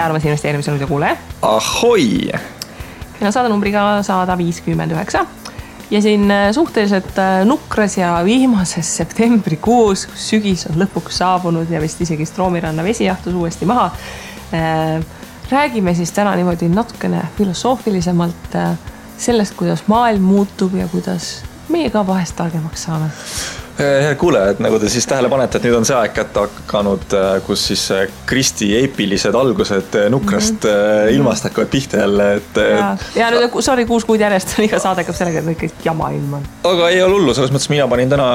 tere armas investeerimise nüüd ja kuule. Ahoi! Meil on saadenumbriga 159 ja siin suhteliselt nukras ja viimases septembrikuus, kus sügis on lõpuks saabunud ja vist isegi Stroomiranna vesi jahtus uuesti maha. Räägime siis täna niimoodi natukene filosoofilisemalt sellest, kuidas maailm muutub ja kuidas meie ka vahest targemaks saame. Hea kuule, et nagu te siis tähele panete, et nüüd on see aeg kätte hakanud, kus siis Kristi eepilised algused nukrast ilmast hakkavad pihta jälle. Ja nüüd, sorry, 6 kuud järjest on iga saade hakkab sellega, et kõik jama ilm on. Aga ei ole hullu, selles mõttes mina panin täna,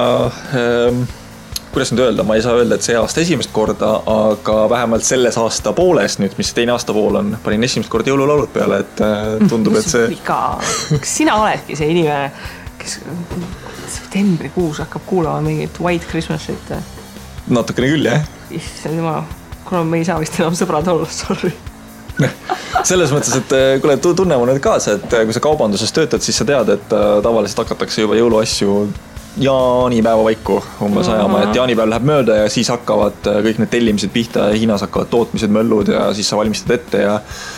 kuidas nüüd öelda, ma ei saa öelda, et see aasta esimest korda, aga vähemalt selles aasta pooles nüüd, mis teine aasta pool on, panin esimest korda jõululaulud peale, et tundub, et see... Kas sina oledki see inimene, kes septembrikuus hakkab kuulama mingit White Christmasit? Natukene küll, jah. Issand jumal, kuna me ei saa vist enam sõbrad olla, sorry. Selles mõttes, et kuule, tunne mu nüüd kaasa, et kui sa kaubanduses töötad, siis sa tead, et tavaliselt hakatakse juba jõuluasju jaanipäeva vaiku umbes ajama, et jaanipäev läheb mööda ja siis hakkavad kõik need tellimised pihta ja Hiinas hakkavad tootmised möllud ja siis sa valmistad ette ja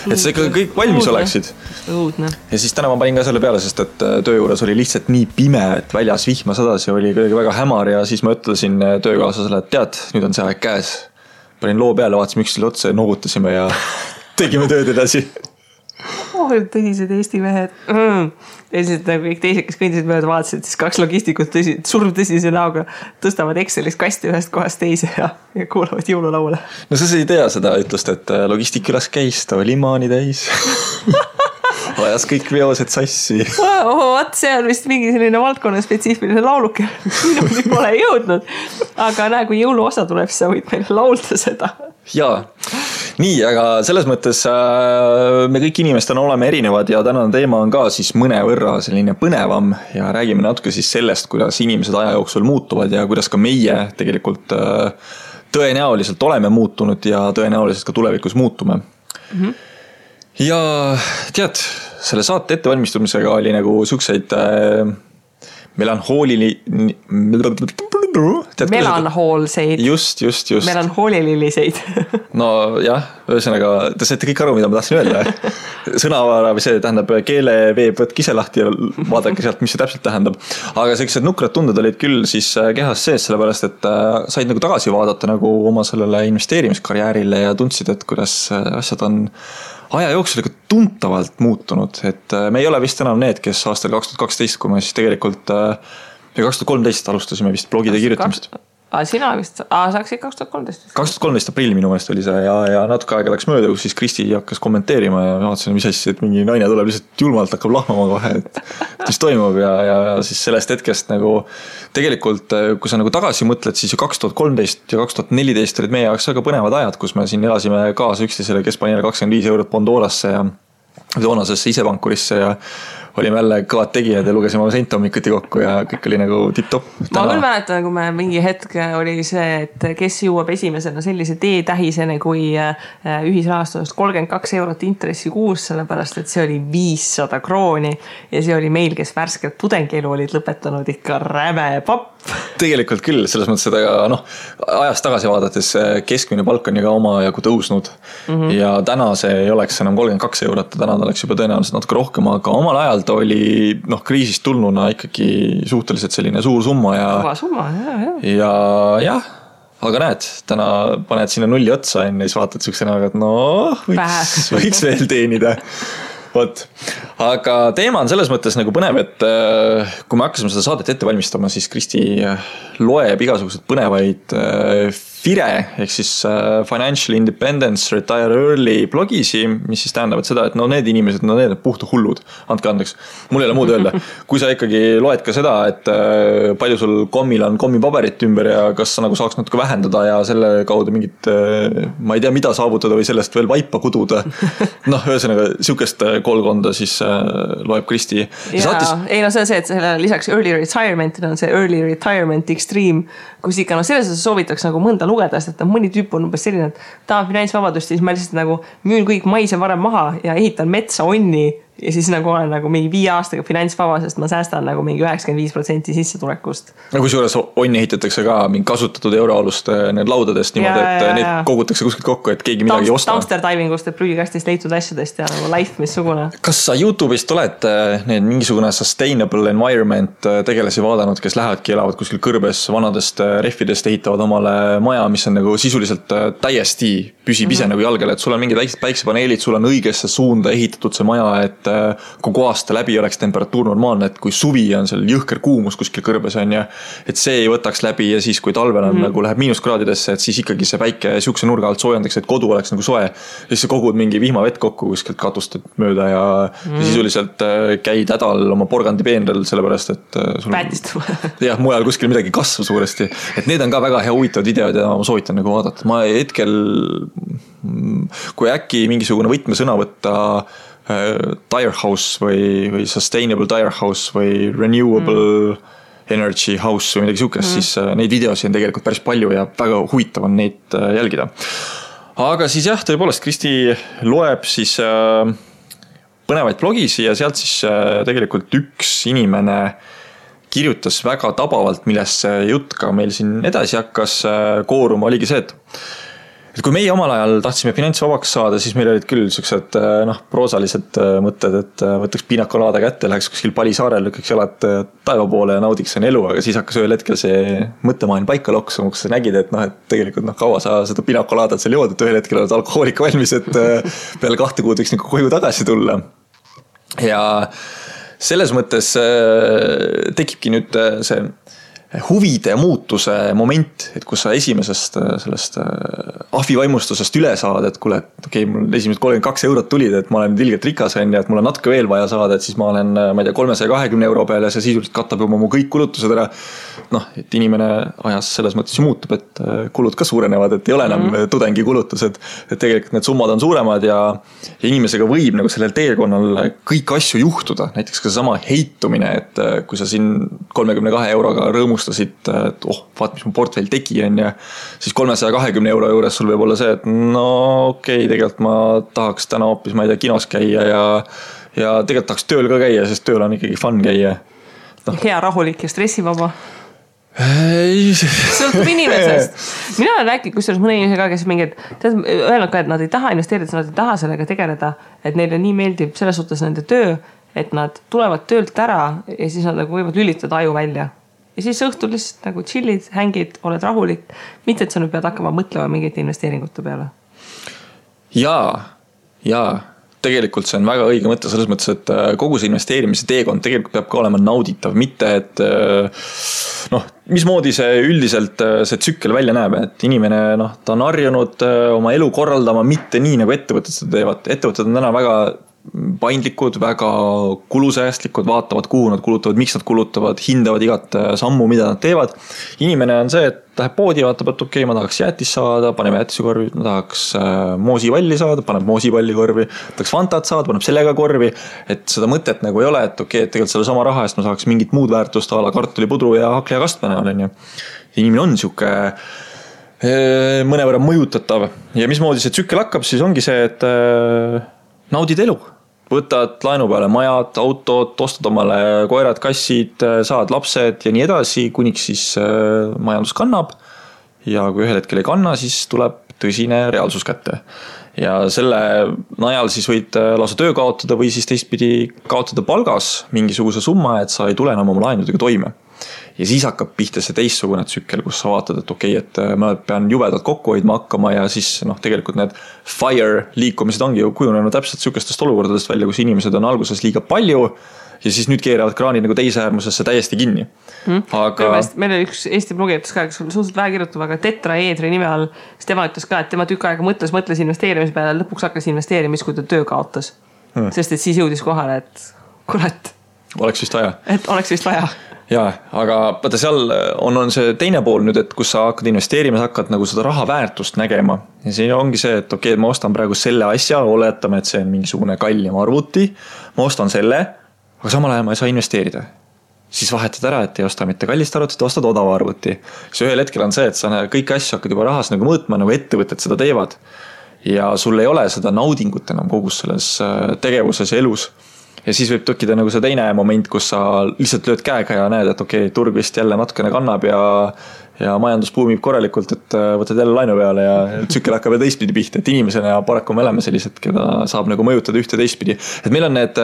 et sa ikka kõik valmis oleksid. Õudne. Ja siis täna ma panin ka selle peale, sest et töö juures oli lihtsalt nii pime, et väljas vihma sadas ja oli kuidagi väga hämar ja siis ma ütlesin töökaaslasele, et tead, nüüd on see aeg käes. Panin loo peale, vaatasime üksteisele otsa ja noogutasime ja tegime tööd edasi. Tõsised Eesti mehed. Ja siis kõik teised, kes kõndisid mööda vaatasid, siis 2 logistikut surm tõsise näoga tõstavad Excelist kasti ühest kohast teise ja kuulavad jõululaule. No sa ei tea seda ütlust, et logistik üles käis, ta oli maani täis. Vajas kõik veosed sassi. Vaat see on vist mingi selline valdkonna spetsiifiline lauluke. Minuni pole jõudnud. Aga näe, kui jõuluosa tuleb, siis sa võid meile laulda seda. Jaa. Nii, aga selles mõttes me kõik inimestena oleme erinevad ja tänane teema on ka siis mõnevõrra selline põnevam ja räägime natuke siis sellest, kuidas inimesed aja jooksul muutuvad ja kuidas ka meie tegelikult tõenäoliselt oleme muutunud ja tõenäoliselt ka tulevikus muutume. Ja tead, selle saate ettevalmistumisega oli nagu sükseid melanhoolseid. Just. Melanhoolililiseid. No jah, ühesõnaga, te saite kõik aru, mida ma tahtsin öelda. Sõnavara või see tähendab keeleveeb võtke ise lahti ja vaadake sealt, mis see täpselt tähendab. Aga sellised nukrad tunded olid küll siis kehas sees, sellepärast, et said nagu tagasi vaadata nagu oma sellele investeerimiskarjäärile ja tundsid, et kuidas asjad on aja jooksul tuntavalt muutunud, et me ei ole vist enam need, kes aastal 2012, kui me siis tegelikult 2013 alustasime vist blogide kirjutamist. Sina vist, sa hakkasid 2013? 2013 aprill minu meelest oli see ja natuke aega läks mööda, kus siis Kristi hakkas kommenteerima ja vaatasin, mis asja, et mingi naine tuleb lihtsalt julmalt hakkab lahmama kohe, et mis toimub ja siis sellest hetkest nagu tegelikult, kui sa nagu tagasi mõtled, siis ju 2013 ja 2014 olid meie jaoks väga põnevad ajad, kus me siin elasime kaasa üksteisele, kes pani 25 eurot Pandorasse ja toonasesse isepankurisse ja olime jälle kõvad tegijad ja lugesime oma senthommikuti kokku ja kõik oli nagu tipp-top. Ma küll mäletan, kui me mingi hetk oli see, et kes jõuab esimesena sellise teetähisene kui ühisrahastusest 32 eurot intressi kuus, sellepärast, et see oli 500 krooni ja see oli meil, kes värskelt tudengielu olid lõpetanud ikka räme papp. Tegelikult küll, selles mõttes seda ajast tagasi vaadates keskmine palk on ju ka oma jagu tõusnud ja täna see ei oleks enam 32 eurot, täna ta oleks juba tõenäoliselt natuke rohkem, aga omal ajal ta oli kriisist tulnuna ikkagi suhteliselt selline suur summa ja summa, ja jah, aga näed, täna paned sinna nulli otsa enne ja siis vaatad sükse näoga, et võiks veel teenida. Võt. Aga teema on selles mõttes nagu põnev, et kui me hakkasime seda saadet ette valmistama, siis Kristi loeb igasugused põnevaid FIRE ehk siis Financial Independence Retire Early blogisi, mis siis tähendavad seda, et need inimesed, need puhta hullud, andke andeks, mul ei ole muud öelda. Kui sa ikkagi loed ka seda, et palju sul kommil on kommipaberit ümber ja kas sa nagu saaks natuke vähendada ja selle kaudu mingit, ma ei tea, mida saavutada või sellest veel vaipa kududa. Ühesõnaga, siukest koolkonda siis loeb Kristi. Ei, see on see, et lisaks early retirement on see early retirement extreme, kus ikka selles soovitaks nagu mõnda lugeda, sest et mõni tüüp on umbes selline, et tahan finantsvabadust, siis ma lihtsalt nagu müün kõik maise varem maha ja ehitan metsa onni ja siis nagu olen nagu mingi 5 aastaga finantsvaba, sest ma säästan nagu mingi 95% sissetulekust. No kui suures onni ehitatakse ka mingi kasutatud euroalust need laudadest niimoodi, et need kogutakse kuskilt kokku, et keegi midagi ei osta. Dumpster divingust, et prügikastist leitud asjadest ja nagu life missugune. Kas sa YouTube'ist oled need mingisugune sustainable environment tegelasi vaadanud, kes lähevadki, elavad kuskil kõrbes vanadest rehvidest, ehitavad omale maja, mis on nagu sisuliselt täiesti püsib ise nagu jalgele, et sul on mingid päiksepaneelid, sul on õigesse suunda ehitatud see maja, et kogu aasta läbi oleks temperatuur normaalne, et kui suvi on seal jõhker kuumus kuskil kõrbes on ja et see ei võtaks läbi ja siis kui talvel on nagu läheb miinuskraadidesse, et siis ikkagi see päike siukse nurga alt soojendaks, et kodu oleks nagu soe. Ja siis sa kogud mingi vihmavett kokku kuskilt katust mööda ja sisuliselt käid hädal oma porgandipeenrel, sellepärast et sul jah, mujal kuskil midagi kasvab suuresti. Et need on ka väga hea huvitavad videod ja ma soovitan nagu vaadata. Ma hetkel, kui äkki mingisugune võtmesõna võtta tire house või sustainable tire house või renewable energy house või midagi siukest, siis neid videosi on tegelikult päris palju ja väga huvitav on neid jälgida. Aga siis jah, tõepoolest Kristi loeb siis põnevaid blogisi ja sealt siis tegelikult üks inimene kirjutas väga tabavalt, millest see jutt ka meil siin edasi hakkas kooruma, oligi see, et kui meie omal ajal tahtsime finantsvabaks saada, siis meil olid küll sellised proosalised mõtted, et võtaks piinakolaada kätte, läheks kuskil Palisaarel, lükkaks jalad taeva poole ja naudiks on elu, aga siis hakkas ühel hetkel see mõttemaailm paika loksuma, kus sa nägid, et tegelikult kaua sa seda piinakolaadat seal jood, et ühel hetkel oled alkohoolik valmis, et peale 2 kuud võiks nagu koju tagasi tulla. Ja selles mõttes tekibki nüüd see huvide muutuse moment, et kus sa esimesest sellest ahvivaimustusest üle saad, et kuule, et okei, mul esimesed 32 eurot tulid, et ma olen ilgelt rikas ja et mul on natuke veel vaja saada, et siis ma olen, ma ei tea, 320 euro peale ja see sisuliselt katab juba mu kõik kulutused ära. Et inimene ajas selles mõttes muutub, et kulud ka suurenevad, et ei ole enam tudengi kulutused, et tegelikult need summad on suuremad ja inimesega võib nagu sellel teekonnal kõik asju juhtuda, näiteks ka sama heitumine, et kui sa siin 32 euroga rõõmustasid, et vaat, mis mu portfell tegi on ja siis 320 euro juures sul võib olla see, et tegelikult ma tahaks täna hoopis, ma ei tea, kinos käia ja tegelikult tahaks tööl ka käia, sest tööl on ikkagi fun käia. Hea, rahulik ja stressivaba. Sõltub inimesest. Mina olen rääkinud kusjuures mõne inimesega, kes mingid öelnud ka, et nad ei taha investeerida, nad ei taha sellega tegeleda, et neile nii meeldib selles suhtes nende töö, et nad tulevad töölt ära ja siis nad nagu võivad lülitada aju välja. Ja siis õhtul lihtsalt nagu chillid, hängid, oled rahulik. Mitte, et sa nüüd pead hakkama mõtlema mingite investeeringute peale. Jaa. Tegelikult see on väga õige mõte selles mõttes, et kogu see investeerimise teekond tegelikult peab ka olema nauditav, mitte et mismoodi see üldiselt see tsükkel välja näeb, et inimene ta on harjunud oma elu korraldama mitte nii nagu ettevõtted seda teevad. Ettevõtted on täna väga paindlikud, väga kulusäästlikud, vaatavad kuhu nad kulutavad, miks nad kulutavad, hindavad igat sammu, mida nad teevad. Inimene on see, et läheb poodi, vaatab, et okei, ma tahaks jäätis saada, paneme jäätise korvi, ma tahaks moosivalli saada, paneb moosipalli korvi, tahaks fantat saada, paneb sellega korvi, et seda mõtet nagu ei ole, et okei, et tegelikult selle sama raha eest ma saaks mingit muud väärtust ala kartulipudru ja hakle ja kastmene olen. Inimene on siuke mõnevõrra mõjutatav ja mismoodi see tsükkel hakkab, siis ongi see, et naudid elu. Võtad laenu peale majad, autod, ostad omale koerad, kassid, saad lapsed ja nii edasi, kuniks siis majandus kannab. Ja kui ühel hetkel ei kanna, siis tuleb tõsine reaalsus kätte. Ja selle najal siis võid lausa töö kaotada või siis teistpidi kaotada palgas mingisuguse summa, et sa ei tule enam oma laenudega toime. Ja siis hakkab pihta see teissugune tsükkel, kus sa vaatad, et okei, et ma pean jubedalt kokku hoidma hakkama ja siis tegelikult need fire liikumised ongi ju kujunenud täpselt sükestest olukordadest välja, kus inimesed on alguses liiga palju ja siis nüüd keeravad kraanid nagu teise äärmusesse täiesti kinni. Aga meil oli üks Eesti blogijates ka, kes suhteliselt vähe kirjutab, aga tetraeedri nime all, siis tema ütles ka, et tema tükk aega mõtles investeerimise peale, lõpuks hakkas investeerimis, kui ta töö kaotas. Sest et siis jõudis kohale, et kurat. Oleks vist vaja. Et oleks vist vaja. Jaa, aga vaata seal on see teine pool nüüd, et kus sa hakkad investeerima, sa hakkad nagu seda raha väärtust nägema. Ja siin ongi see, et okei, ma ostan praegu selle asja, oletame, et see on mingisugune kallim arvuti, ma ostan selle, aga samal ajal ma ei saa investeerida. Siis vahetad ära, et ei osta mitte kallist arvutit, ostad odava arvuti. See ühel hetkel on see, et sa kõik asju hakkad juba rahas nagu mõõtma, nagu ettevõtted seda teevad. Ja sul ei ole seda naudingut enam kogus selles tegevuses ja elus. ja siis võib tekkida nagu see teine moment, kus sa lihtsalt lööd käega ja näed, et okei, turg vist jälle natukene kannab ja majandus buumib korralikult, et võtad jälle laenu peale ja tsükkel hakkab ja teistpidi pihta, et inimesena ja paraku me oleme sellised, keda saab nagu mõjutada ühte teistpidi. Et meil on need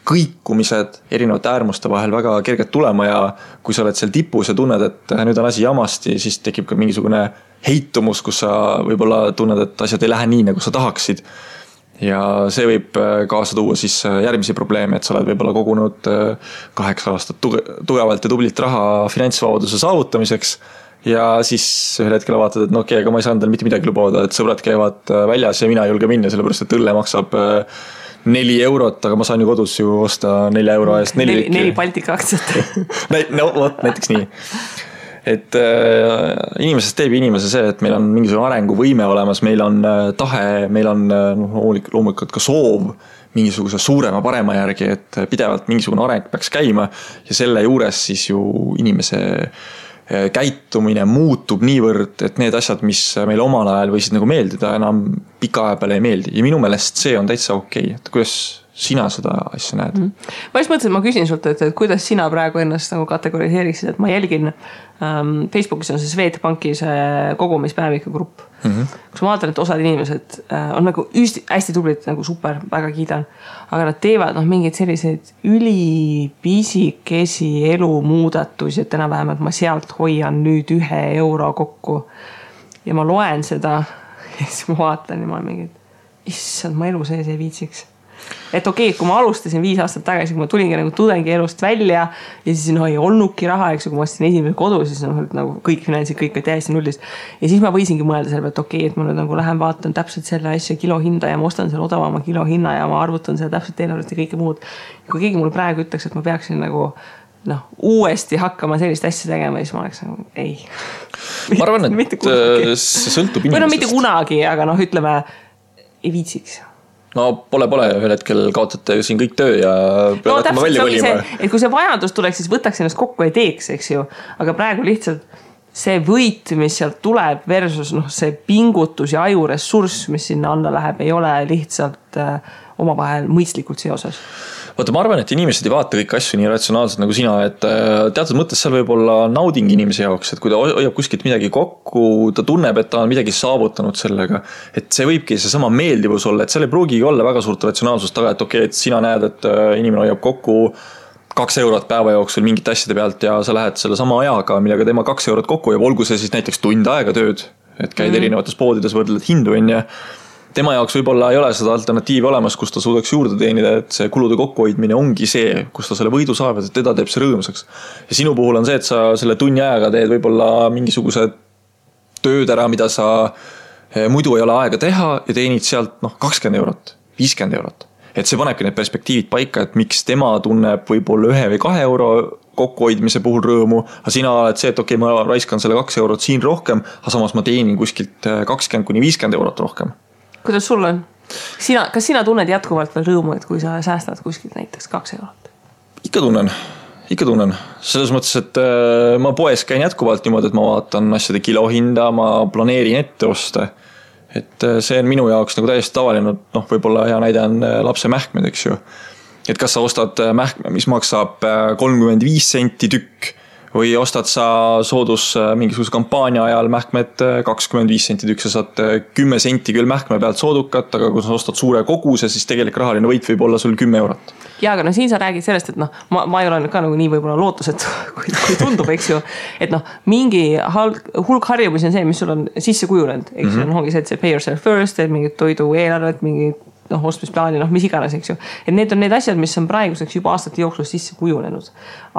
kõikumised erinevate äärmuste vahel väga kerged tulema ja kui sa oled seal tipus ja tunned, et nüüd on asi jamasti, siis tekib ka mingisugune heitumus, kus sa võib-olla tunned, et asjad ei lähe nii, nagu sa tahaksid. Ja see võib kaasa tuua siis järgmisi probleeme, et sa oled võib-olla kogunud 8 aastat tugevalt ja tublilt raha finantsvabaduse saavutamiseks ja siis ühel hetkel vaatad, et no okei, aga ma ei saanud mitte midagi lubada, et sõbrad käivad väljas ja mina ei julge minna, sellepärast et õlle maksab 4 eurot, aga ma saan ju kodus ju osta 4 euro eest 4 Baltika aktsiat. No vot, näiteks nii. Et inimesest teeb inimese see, et meil on mingisugune arenguvõime olemas, meil on tahe, meil on loomulikult ka soov mingisuguse suurema parema järgi, et pidevalt mingisugune areng peaks käima ja selle juures siis ju inimese käitumine muutub niivõrd, et need asjad, mis meil omal ajal võisid nagu meeldida, enam pika aja peale ei meeldi ja minu meelest see on täitsa okei. Et kuidas sina seda asja näed? Ma just mõtlesin, et ma küsin sult, et kuidas sina praegu ennast nagu kategoriseeriksid, et ma jälgin Facebookis on see Swedbanki see kogumispäeviku grupp. Kus ma vaatan, et osad inimesed on nagu hästi tublid, nagu super, väga kiidan, aga nad teevad mingeid selliseid ülipisikesi elumuudatusi, et enam-vähem, et ma sealt hoian nüüd 1 euro kokku ja ma loen seda ja siis ma vaatan ja ma olen mingid, issand, ma elu sees ei viitsiks. Et okei, kui ma alustasin 5 aastat tagasi, kui ma tulingi nagu tudengi elust välja ja siis ei olnudki raha, eks kui ma ostsin esimese kodu, siis nagu kõik finantsid, kõik täiesti nullist. Ja siis ma võisingi mõelda selle, et okei, et ma nüüd nagu lähen vaatan täpselt selle asja kilohinda ja ma ostan selle odavama kilohinna ja ma arvutan selle täpselt eelarvest ja kõike muud. Ja kui keegi mulle praegu ütleks, et ma peaksin nagu uuesti hakkama sellist asja tegema, siis ma oleks nagu ei. Ma arvan, et see sõltub inimesest. Või mitte kunagi, aga ütleme, ei viitsiks. No pole, ühel hetkel kaotate siin kõik töö ja pead hakkama välja kolima. Et kui see vajadus tuleks, siis võtaks ennast kokku ja teeks, eks ju. Aga praegu lihtsalt see võit, mis sealt tuleb versus see pingutus ja ajuressurss, mis sinna anda läheb, ei ole lihtsalt omavahel mõistlikult seoses. Vaata, ma arvan, et inimesed ei vaata kõik asju nii ratsionaalselt nagu sina, et teatud mõttes seal võib olla nauding inimese jaoks, et kui ta hoiab kuskilt midagi kokku, ta tunneb, et ta on midagi saavutanud sellega, et see võibki see sama meeldivus olla, et seal ei pruugigi olla väga suurt ratsionaalsust taga, et okei, et sina näed, et inimene hoiab kokku 2 eurot päeva jooksul mingite asjade pealt ja sa lähed selle sama ajaga, millega tema 2 eurot kokku ja olgu see siis näiteks tund aega tööd, et käid erinevates poodides, võrdled hindu ja tema jaoks võib-olla ei ole seda alternatiivi olemas, kus ta suudaks juurde teenida, et see kulude kokkuhoidmine ongi see, kus ta selle võidu saab, et teda teeb see rõõmsaks. Ja sinu puhul on see, et sa selle tunni ajaga teed võib-olla mingisuguse tööd ära, mida sa muidu ei ole aega teha ja teenid sealt 20 eurot, 50 eurot. Et see panebki need perspektiivid paika, et miks tema tunneb võib-olla 1 või 2 euro kokkuhoidmise puhul rõõmu, aga sina oled see, et okei, ma raiskan selle 2 eurot siin rohkem, aga samas ma teenin kuskilt 20–50 eurot rohkem. Kuidas sul on? Kas sina tunned jätkuvalt veel rõõmu, et kui sa säästad kuskilt näiteks 2 eurot? Ikka tunnen. Selles mõttes, et ma poes käin jätkuvalt niimoodi, et ma vaatan asjade kilohinda, ma planeerin ette osta. Et see on minu jaoks nagu täiesti tavaline, võib-olla hea näide on lapse mähkmed, eks ju. Et kas sa ostad mähkme, mis maksab 35 senti tükk või ostad sa soodus mingisuguse kampaania ajal mähkmed 25 senti tükk, sa saad 10 senti küll mähkme pealt soodukat, aga kui sa ostad suure koguse, siis tegelik rahaline võit võib olla sul 10 eurot. Ja, aga siin sa räägid sellest, et ma ei ole ka nagu nii võib-olla lootuset, kui tundub, eks ju, et mingi hulk harjumusi on see, mis sul on sisse kujunenud, eks ju, ongi see, et see pay yourself first, et mingid toidu eelarvet, mingid ostmisplaani, mis iganes, eks ju. Et need on need asjad, mis on praeguseks juba aastate jooksul sisse kujunenud.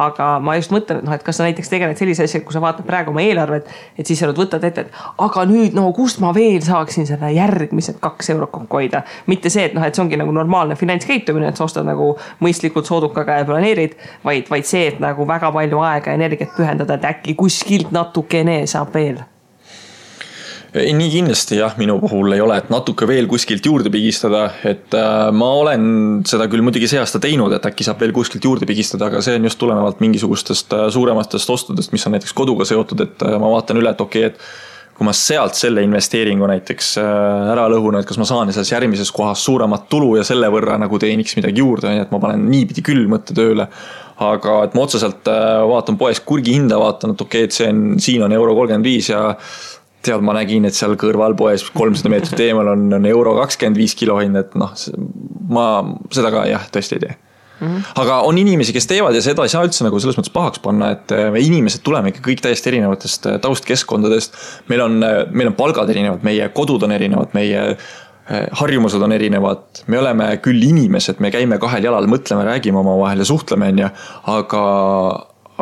Aga ma just mõtlen, et kas sa näiteks tegeled sellise asja, kui sa vaatad praegu oma eelarvet, et siis sa võtad ette, et aga nüüd, kust ma veel saaksin selle järgmised 2 eurot kokku hoida. Mitte see, et see ongi nagu normaalne finantskäitumine, et sa ostad nagu mõistlikult soodukaga ja planeerid, vaid see, et nagu väga palju aega ja energiat pühendada, et äkki kuskilt natukene saab veel. Nii kindlasti jah, minu puhul ei ole, et natuke veel kuskilt juurde pigistada, et ma olen seda küll muidugi see aasta teinud, et äkki saab veel kuskilt juurde pigistada, aga see on just tulenevalt mingisugustest suurematest ostudest, mis on näiteks koduga seotud, et ma vaatan üle, et okei, et kui ma sealt selle investeeringu näiteks ära lõhun, et kas ma saan selles järgmises kohas suuremat tulu ja selle võrra nagu teeniks midagi juurde, nii et ma panen niipidi küll mõtte tööle. Aga et ma otseselt vaatan poes kurgi hinda, vaatan, et okei, et siin on €35 ja tead, ma nägin, et seal kõrval poes 300 meetrit eemal on €25 kilohind, et noh, ma seda ka jah, tõesti ei tee. Aga on inimesi, kes teevad ja seda ei saa üldse nagu selles mõttes pahaks panna, et me inimesed tuleme ikka kõik täiesti erinevatest taustkeskkondadest. Meil on palgad erinevad, meie kodud on erinevad, meie harjumused on erinevad. Me oleme küll inimesed, me käime kahel jalal, mõtleme, räägime oma vahel ja suhtleme,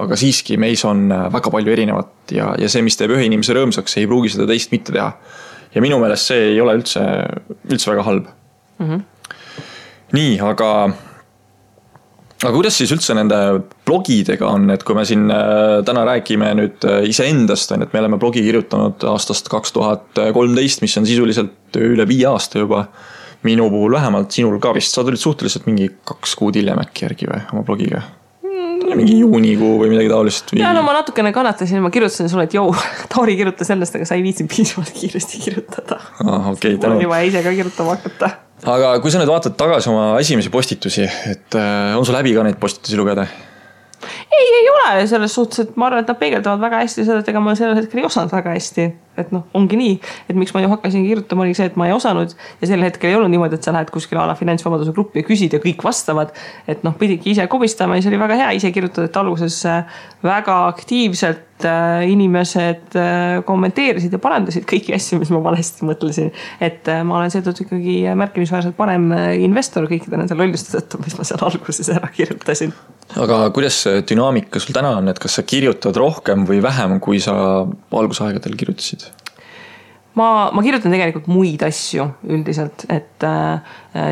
aga siiski meis on väga palju erinevat ja see, mis teeb ühe inimese rõõmsaks, ei pruugi seda teist mitte teha. Ja minu meelest see ei ole üldse väga halb. Nii, aga kuidas siis üldse nende blogidega on, et kui me siin täna räägime nüüd iseendast, et me oleme blogi kirjutanud aastast 2013, mis on sisuliselt üle 5 aasta juba. Minu puhul vähemalt, sinul ka vist, sa tulid suhteliselt mingi 2 kuud hiljem äkki järgi või oma blogiga? Mingi juunikuu või midagi taolist? Ja no ma natukene kannatasin, ma kirjutasin sulle, et Tauri kirjuta sellest, aga sa ei viitsin piisavalt kiiresti kirjutada. Okay, mul on juba ise ka kirjutama hakata. Aga kui sa nüüd vaatad tagasi oma esimesi postitusi, et on sul läbi ka neid postitusi lugeda? Ei ole selles suhtes, et ma arvan, et nad peegeldavad väga hästi seda, et ega ma sellel hetkel ei osanud väga hästi. Et noh, ongi nii, et miks ma ju hakkasin kirjutama, oli see, et ma ei osanud ja sel hetkel ei olnud niimoodi, et sa lähed kuskil ala finantsvabaduse gruppi ja küsid ja kõik vastavad. Et noh, pidigi ise kobistama ja see oli väga hea ise kirjutada, et alguses väga aktiivselt inimesed kommenteerisid ja parandasid kõiki asju, mis ma valesti mõtlesin. Et ma olen seetõttu ikkagi märkimisväärselt parem investor kõikide nende lolluste tõttu, mis ma seal alguses ära kirjutasin. Aga kuidas dünaamika sul täna on, et kas sa kirjutad rohkem või vähem, kui sa algusaegadel kirjutasid? Ma kirjutan tegelikult muid asju üldiselt, et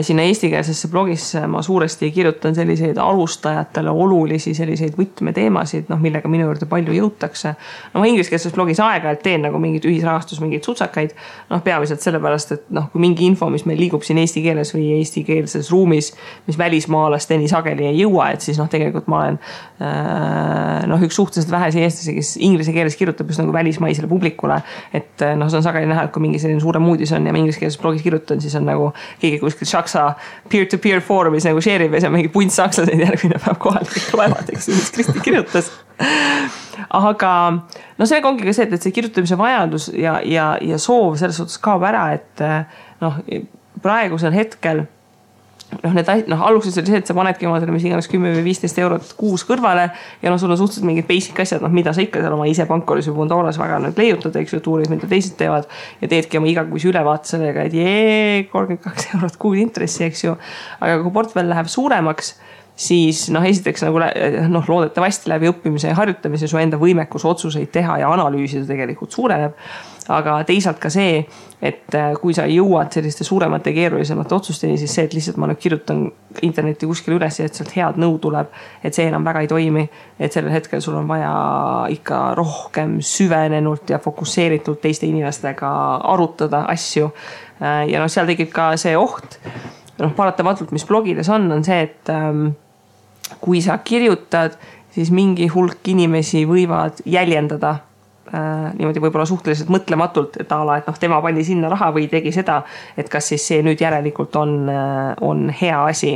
sinna eestikeelsesse blogisse ma suuresti kirjutan selliseid alustajatele olulisi selliseid võtmeteemasid, millega minu juurde palju jõutakse. No ma ingliskeelses blogis aeg-ajalt teen nagu mingid ühisrahastus, mingid sutsakaid, peamiselt sellepärast, et kui mingi info, mis meil liigub siin eesti keeles või eestikeelses ruumis, mis välismaalasteni sageli ei jõua, et siis tegelikult ma olen üks suhteliselt vähesi eestlasi, kes inglise keeles kirjutab just nagu välismaisele publikule, et see on sageli näha, et kui mingi selline suurem uudis on ja ma ingliskeelses blogis kirjutan, siis on nagu keegi kuskil Shaksa peer-to-peer foorumis nagu share'ib ja see on mingi punt sakslaseid järgmine päev kohalik loevad, mis Kristi kirjutas. Aga sellega ongi ka see, et see kirjutamise vajadus ja soov selles suhtes kaob ära, et praegusel hetkel alguses oli see, et sa panedki omadele mis iganes 10 või 15 eurot kuus kõrvale ja sul on suhteliselt mingid basic asjad, mida sa ikka seal oma ise pankoris või Bondoras väga leiutad, eks ju, tuuris, mida teised teevad ja teedki oma igakuise ülevaate sellega, et 32 eurot kuud intressi, eks ju. Aga kui portfell läheb suuremaks, siis esiteks loodetavasti läbi õppimise ja harjutamise su enda võimekus otsuseid teha ja analüüsida tegelikult suureneb. Aga teisalt ka see, et kui sa jõuad selliste suuremate keerulisemate otsusteni, siis see, et lihtsalt ma kirjutan interneti kuskil üles ja et sealt head nõu tuleb, et see enam väga ei toimi, et sellel hetkel sul on vaja ikka rohkem süvenenult ja fokusseeritult teiste inimestega arutada asju. Ja seal tekib ka see oht, paratamatult, mis blogides on see, et kui sa kirjutad, siis mingi hulk inimesi võivad jäljendada niimoodi võib-olla suhteliselt mõtlematult, et et tema pani sinna raha või tegi seda, et kas siis see nüüd järelikult on hea asi,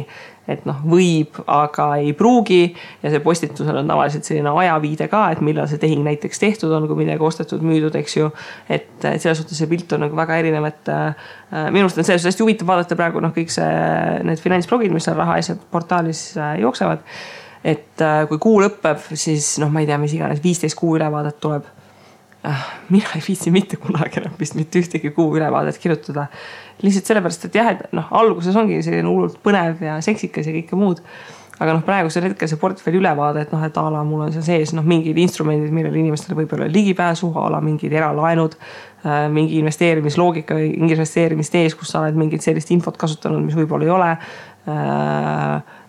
et võib, aga ei pruugi ja see postitusel on tavaliselt selline ajaviide ka, et millal see tehing näiteks tehtud on, kui midagi ostetud, müüdud, eks ju, et selles suhtes see pilt on nagu väga erinev, et minu arust on selles hästi huvitav vaadata praegu kõik need finantsblogid, mis seal raha asjad portaalis jooksevad, et kui kuu lõpeb, siis ma ei tea, mis iganes 15 kuu ülevaadet tuleb. Mina ei viitsi mitte kunagi enam vist mitte ühtegi kuu ülevaadet kirjutada. Lihtsalt sellepärast, et jah, et alguses ongi selline hullult põnev ja seksikas ja kõike muud. Aga praegusel hetkel see portfelli ülevaade, et et ala mul on seal sees mingid instrumendid, millele inimestele võib-olla ligipääsu, ala mingid eralaenud, mingi investeerimisloogika või investeerimistees, kus sa oled mingit sellist infot kasutanud, mis võib-olla ei ole.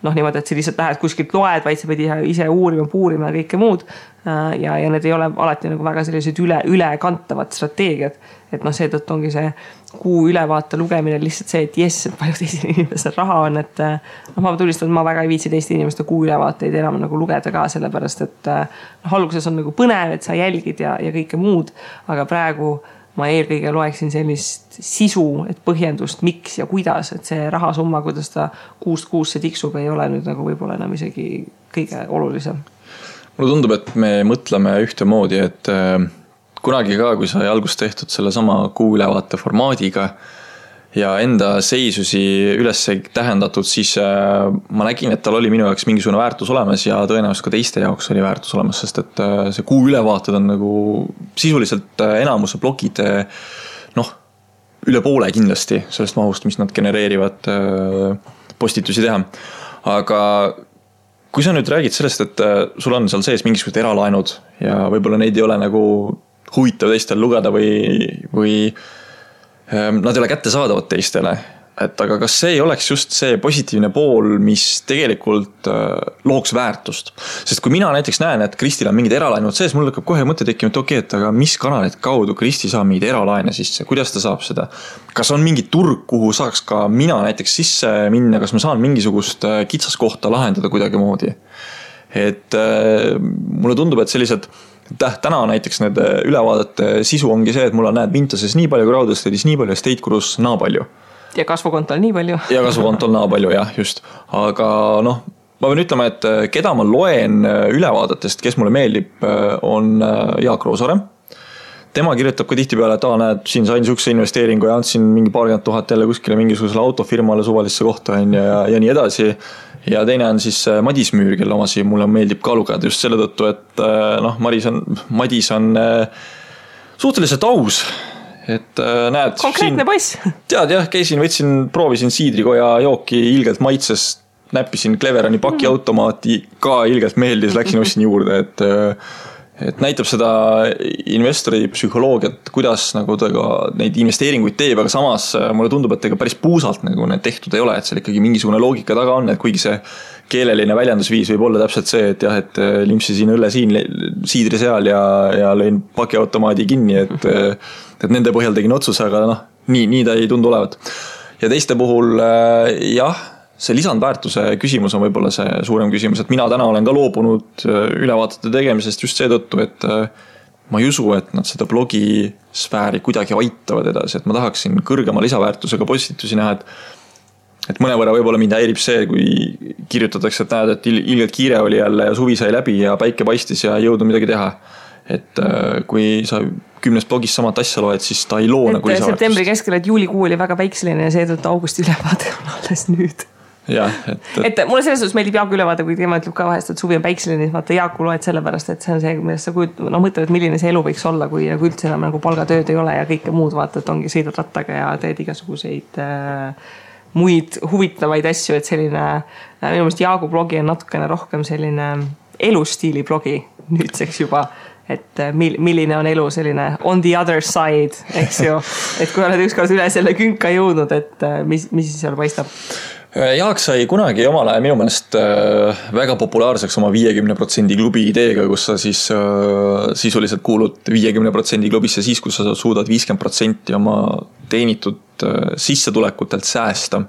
Niimoodi, et sa lihtsalt lähed kuskilt loed, vaid sa pidi ise uurima, puurima ja kõike muud. Ja need ei ole alati väga sellised ülekantavad strateegiad. Et seetõttu ongi see kuu ülevaate lugemine lihtsalt see, et jess, et palju teisel inimesel raha on. Et ma tulistan, et ma väga ei viitsi teiste inimeste kuu ülevaateid enam lugeda ka, sellepärast, et alguses on põnev, et sa jälgid ja kõike muud. Aga praegu ma eelkõige loeksin sellist sisu, et põhjendust, miks ja kuidas, et see rahasumma, kuidas ta kuust kuusse tiksub, ei ole nüüd nagu võib-olla enam isegi kõige olulisem. Mulle tundub, et me mõtleme ühtemoodi, et kunagi ka, kui sai algust tehtud selle sama kuuülevaate formaadiga ja enda seisusi üles tähendatud, siis ma nägin, et tal oli minu jaoks mingisugune väärtus olemas ja tõenäoliselt ka teiste jaoks oli väärtus olemas, sest et see kuuülevaated on nagu sisuliselt enamuse blogid, üle poole kindlasti sellest mahust, mis nad genereerivad postitusi teha. Aga kui sa nüüd räägid sellest, et sul on seal sees mingisugused eralaenud ja võib-olla neid ei ole nagu huvitav teistel lugeda või nad ei ole kättesaadavad teistele, et aga kas see ei oleks just see positiivne pool, mis tegelikult looks väärtust? Sest kui mina näiteks näen, et Kristil on mingid eralaenud sees, mul hakkab kohe mõte tekkima, et okei, et aga mis kanalid kaudu Kristi saab mingid eralaene sisse, kuidas ta saab seda? Kas on mingi turg, kuhu saaks ka mina näiteks sisse minna, kas ma saan mingisugust kitsaskohta lahendada kuidagi moodi? Et mulle tundub, et sellised täna näiteks need ülevaadete sisu ongi see, et mul on näed Vintases nii palju, Crowdestate'is nii palju ja State Gurus naa palju. Ja kasvukontol nii palju. Ja kasvukontol naa palju, jah, just. Aga ma võin ütlema, et keda ma loen ülevaadatest, kes mulle meeldib, on Jaak Roosaare. Tema kirjutab ka tihti peale, et näed, siin sain sihukese investeeringu ja andsin mingi 40 000 jälle kuskile mingisugusele autofirmale suvalisse kohta ja nii edasi. Ja teine on siis Madis Müür, kelle omasi mulle meeldib ka lugeda just selle tõttu, et Madis on suhteliselt aus. Et näed... Konkreetne poiss. Tead jah, proovisin siidrikoja jooki ilgelt maitses, näppisin Cleverani pakiautomaati, ka ilgelt meeldis, läksin ostsin juurde, et näitab seda investori psühholoogiat, kuidas nagu ta ka neid investeeringuid teeb, aga samas mulle tundub, et ega päris puusalt nagu need tehtud ei ole, et seal ikkagi mingisugune loogika taga on, et kuigi see keeleline väljendusviis võib olla täpselt see, et jah, et limpsisin õlle siin, siidri seal ja lõin pakiautomaadi kinni, et nende põhjal tegin otsuse, aga nii ta ei tundu olevat. Ja teiste puhul jah, see lisandväärtuse küsimus on võib-olla see suurem küsimus, et mina täna olen ka loobunud ülevaatete tegemisest just seetõttu, et ma ei usu, et nad seda blogisfääri kuidagi aitavad edasi, et ma tahaksin kõrgema lisaväärtusega postitusi näha, et mõnevõrra võib-olla mind häirib see, kui kirjutatakse, et näed, et ilgelt kiire oli jälle ja suvi sai läbi ja päike paistis ja ei jõudnud midagi teha. Et kui sa 10 blogis samat asja loed, siis ta ei loo nagu lisaväärtust. Septembri keskel, et juulikuu oli väga päikseline ja seetõttu augusti ülevaade on alles nüüd. Ja, et mulle selles suhtes meeldib Jaaku ülevaade, kui tema ütleb ka vahest, et suvi on päikseline, vaata Jaaku loed sellepärast, et see on see, millest sa mõtled, et milline see elu võiks olla, kui üldse enam nagu palgatööd ei ole ja kõike muud vaata, et ongi sõidad rattaga ja teed igasuguseid muid huvitavaid asju, et selline, minu meelest Jaagu blogi on natukene rohkem selline elustiili blogi nüüdseks juba, et milline on elu selline on the other side, eks ju, et kui oled ükskord üle selle künka jõudnud, et mis siis seal paistab? Jaak sai kunagi omal ajal minu meelest väga populaarseks oma 50% klubi ideega, kus sa siis sisuliselt kuulud 50% klubisse siis, kus sa suudad 50% oma teenitud sissetulekutelt säästa.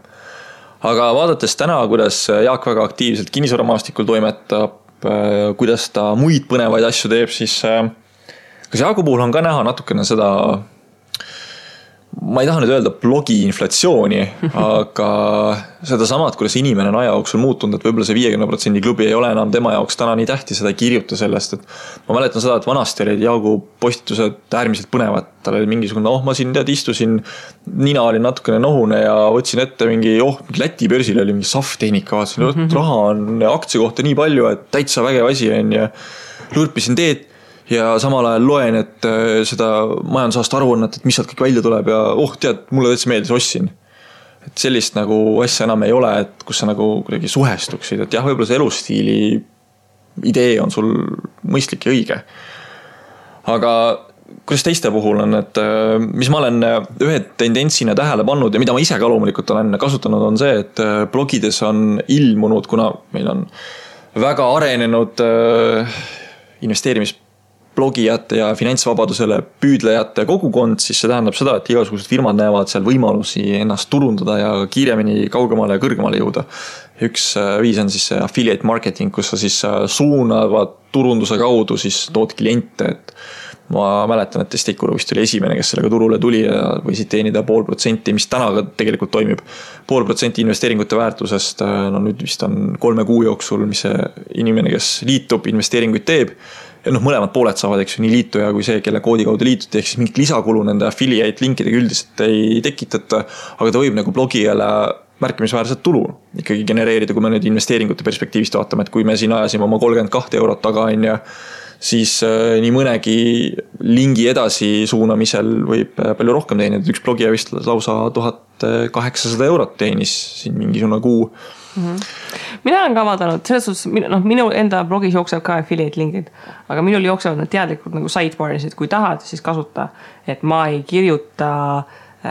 Aga vaadates täna, kuidas Jaak väga aktiivselt kinnisvaramaastikul toimetab, kuidas ta muid põnevaid asju teeb, siis kas Jaagu puhul on ka näha natukene seda, ma ei taha nüüd öelda blogi inflatsiooni, aga seda samad, kuidas inimene on aja jooksul muutunud, et võib-olla see 50% klubi ei ole enam tema jaoks täna nii tähtis, seda ei kirjuta sellest, et ma mäletan seda, et vanasti olid Jaagu postitused äärmiselt põnevad, tal oli mingisugune, ma siin istusin, nina oli natukene nohune ja võtsin ette mingi Läti börsil oli mingi safttehnika, vaatasin, raha on aktsia kohta nii palju, et täitsa vägev asi on ja lurpisin teed ja samal ajal loen, et seda majandusaasta aruannet, et mis sealt kõik välja tuleb ja tead, mulle täitsa meeldis, ostsin. Et sellist nagu asja enam ei ole, et kus sa nagu kuidagi suhestuksid, et jah, võib-olla see elustiili idee on sul mõistlik ja õige. Aga kuidas teiste puhul on, et mis ma olen ühe tendentsina tähele pannud ja mida ma ise ka loomulikult olen kasutanud, on see, et blogides on ilmunud, kuna meil on väga arenenud investeerimisblogijate ja finantsvabadusele püüdlejate kogukond, siis see tähendab seda, et igasugused firmad näevad seal võimalusi ennast turundada ja kiiremini kaugemale ja kõrgemale jõuda. Üks viis on siis affiliate marketing, kus sa siis suunavad turunduse kaudu siis tood kliente, et ma mäletan, et Testikuru vist oli esimene, kes sellega turule tuli ja võisid teenida 0,5%, mis täna ka tegelikult toimib. 0,5% investeeringute väärtusest, no nüüd vist on 3 kuu jooksul, mis see inimene, kes liitub, investeeringuid teeb. Ja mõlemad pooled saavad, eks ju, nii liituja kui see, kelle koodi kaudu liituti, ehk siis mingit lisakulu nende affiliate linkidega üldiselt ei tekitata, aga ta võib nagu blogijale märkimisväärset tulu ikkagi genereerida, kui me nüüd investeeringute perspektiivist vaatame, et kui me siin ajasime oma 32 eurot taga on ja siis nii mõnegi lingi edasi suunamisel võib palju rohkem teenida. Üks blogija vist lausa 1800 eurot teenis siin mingisugune kuu. Mina olen ka vaadanud, selles suhtes, minu enda blogis jookseb ka affiliate linkid, aga minul jooksevad nad teadlikult nagu sidebarisid, kui tahad, siis kasuta, et ma ei kirjuta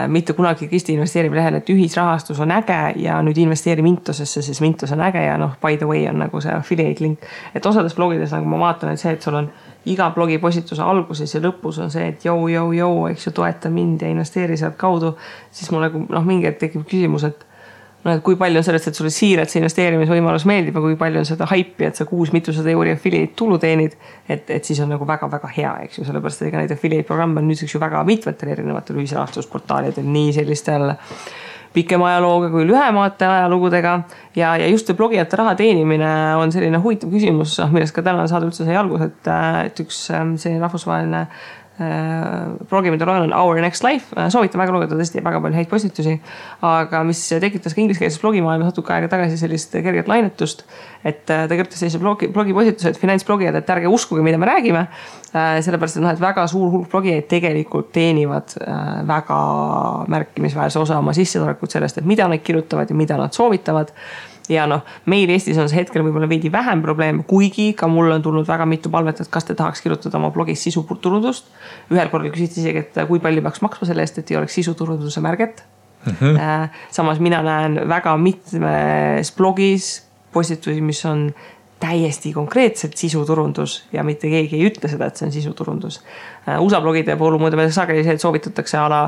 mitte kunagi Kristi investeerib lehel, et ühisrahastus on äge ja nüüd investeeri Mintosesse, siis Mintos on äge ja by the way on nagu see affiliate link. Et osades blogides nagu ma vaatan, et see, et sul on iga blogi postituse alguses ja lõpus on see, et jou, eks ju, toeta mind ja investeeri sealt kaudu, siis mul nagu mingi hetk tekib küsimus, et kui palju on sellest, et sulle siiralt see investeerimisvõimalus meeldib ja kui palju on seda haipi, et sa 600 euri affiliate tulu teenid, et siis on nagu väga-väga hea, eks ju, sellepärast, et ega neid affiliate programme on nüüdseks ju väga mitmetel erinevatel ühisrahastusportaalidel, nii sellistel pikema ajalooga kui lühemate ajalugudega ja just see blogijate raha teenimine on selline huvitav küsimus, millest ka täna saada üldse sai algus, et üks see rahvusvaheline blogi, mida loen on Our Next Life, soovitan väga lugeda tõesti väga palju häid postitusi, aga mis tekitas ka ingliskeelses blogimaailmas natuke aega tagasi sellist kerget lainetust, et ta kirjutas sellise blogi postitused, finantsblogijad, et ärge uskuge, mida me räägime, sellepärast, et väga suur hulk blogijaid tegelikult teenivad väga märkimisväärse osa oma sissetulekut sellest, et mida nad kirjutavad ja mida nad soovitavad. Ja meil Eestis on see hetkel võib-olla veidi vähem probleem, kuigi ka mul on tulnud väga mitu palvet, et kas te tahaks kirjutada oma blogis sisuturundust. Ühel korral küsiti isegi, et kui palju peaks maksma selle eest, et ei oleks sisuturunduse märget. Samas mina näen väga mitmes blogis postitusi, mis on täiesti konkreetselt sisuturundus ja mitte keegi ei ütle seda, et see on sisuturundus. USA blogide puhul muidu sageli see, et soovitatakse ala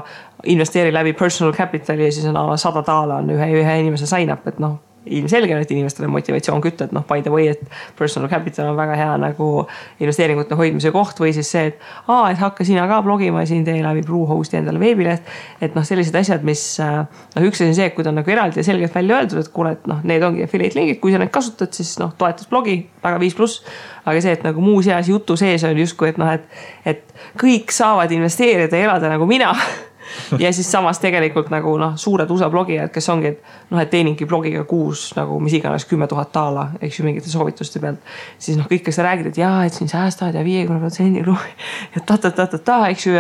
investeeri läbi personal capitali ja siis on ala $100 on ühe inimese sign up, et ilmselge, et inimestele motivatsioon kütta, et by the way, et personal capital on väga hea nagu investeeringute hoidmise koht või siis see, et hakka sina ka blogima ja siin tee läbi Bluehosti endale veebileht, et sellised asjad, mis üks on see, et kui ta on nagu eraldi ja selgelt välja öeldud, et kuule, et need ongi affiliate linkid, kui sa neid kasutad, siis toetas blogi väga 5+, aga see, et nagu muu seas jutu sees on justkui, et kõik saavad investeerida ja elada nagu mina ja siis samas tegelikult nagu suured USA blogijad, kes ongi, et teeningi blogiga kuus nagu mis iganes $10,000, eks ju mingite soovituste pealt, siis kõik, kes sa räägid, et jaa, et siin säästad ja 50% ja ta, eks ju,